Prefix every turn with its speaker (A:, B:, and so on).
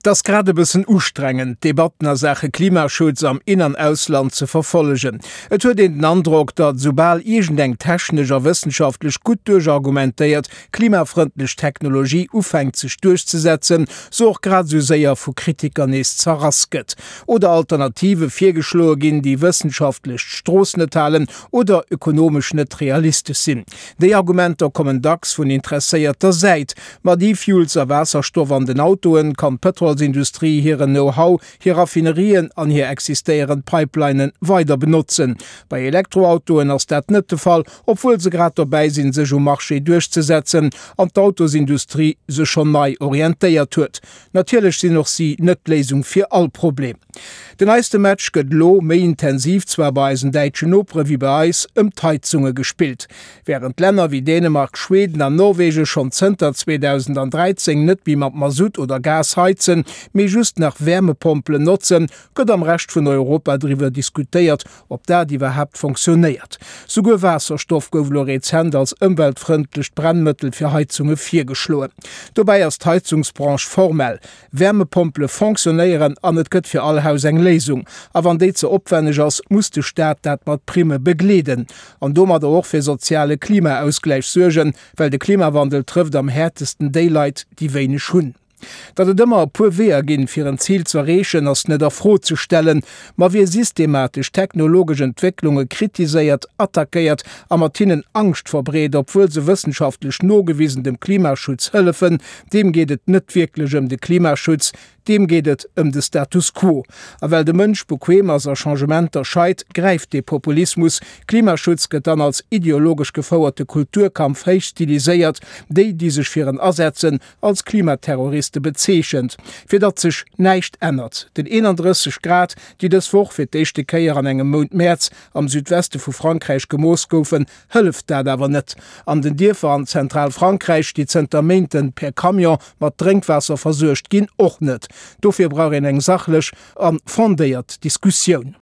A: Et ass grad e bëssen ustrengend, d'Debatten a Saache Klimaschutz am In an Ausland ze verfollegen. Et huet een den Androck, datt esoubal iergendeng technesch a wëssenschaftlech gutt duerchargumentéiert klimafrëndlech Technologie ufänkt sech duerchzesetzen, se och grad esou séier vu Kritiker nees zerrass gëtt. Oder Alternative virgeschloe ginn, déi wëssenschaftlech d'Strooss net halen oder ökonomesch net realistesch sinn. Déi Argumenter kommen dacks vun interesséierter Säit. Mat E-Fuels a Waasserstoff an den Autoen kann d'Pëtrolsindustrie hiren Know-how, hir Raffinerien an hir existéierend Pipelinen weider benotzen. Bei Elektroautoen ass dat net de Fall, obwuel se grad dobäi sinn sech um Marché duerchzesetzen an d'Autosindustrie sech schonn nei orientéiert huet. Natierlech sinn och si net d'Léisung fir all Problem. Den neiste Match gëtt elo méi intensiv zwar bei eisen däitschen Nopere wéi bei eis ëm d'Heizunge gespillt. Wärend Länner wéi Dänemark, Schweden an Norwegen schonn zënter 2013 net méi mat Masutt oder Gas heizen, mee just nach Wäermepompelen notzen, gëtt am Rescht vun Europa driwwer diskutéiert, ob dat iwwerhaapt fonctionnéiert. Souguer Waasserstoff gouf elo rezent als ëmweltfrëndlecht Brennmëttel fir Heizunge virgeschloen. Dobäi ass d'Heizungsbranche formell. Wäermepompele fonctionnéieren an et gëtt fir all Haus eng Léisung. A wann déi ze opwenneg ass, muss de Staat dat mat Primme begleeden. An domadder och fir soziale Klimaausgläich suergen, well de Klimawandel trëfft am häertesten déi Leit, déi wéineg hunn. Datt et ëmmer e puer Weeër ginn, fir en Zil z'erreechen, ass net a Fro ze stellen. Ma wie systematesch technologesch Entwécklunge kritiséiert, attackéiert a mat hinnen Angscht verbreet, obwuel se wëssenschaftlech nogewisen dem Klimaschutz hëllefen, deem geet et net wierklech ëm de Klimaschutz, deem geet et ëm de Status quo. A well de Mënsch bequem ass a Changementer scheit, gräift dee Populismus. Klimaschutz gëtt dann als ideologesch gefouerte Kulturkampf héich stiliséiert, déi, déi sech fir en asetzen, als Klimaterroriste bezeechent, fir datt sech näischt ännert. Den 31 Grad, déi dës Woch fir d'éischte Kéier an engem Mount Mäerz am Südweste vu Frankräich gemooss goufen, hëlleft dat awer net. An den Dierfer an Zentralfrankräich, déi zënter Méinten per Camion mat Drénkwaasser versuergt ginn, och net. Dofir brauch een eng sachlech a fondéiert Diskussioun.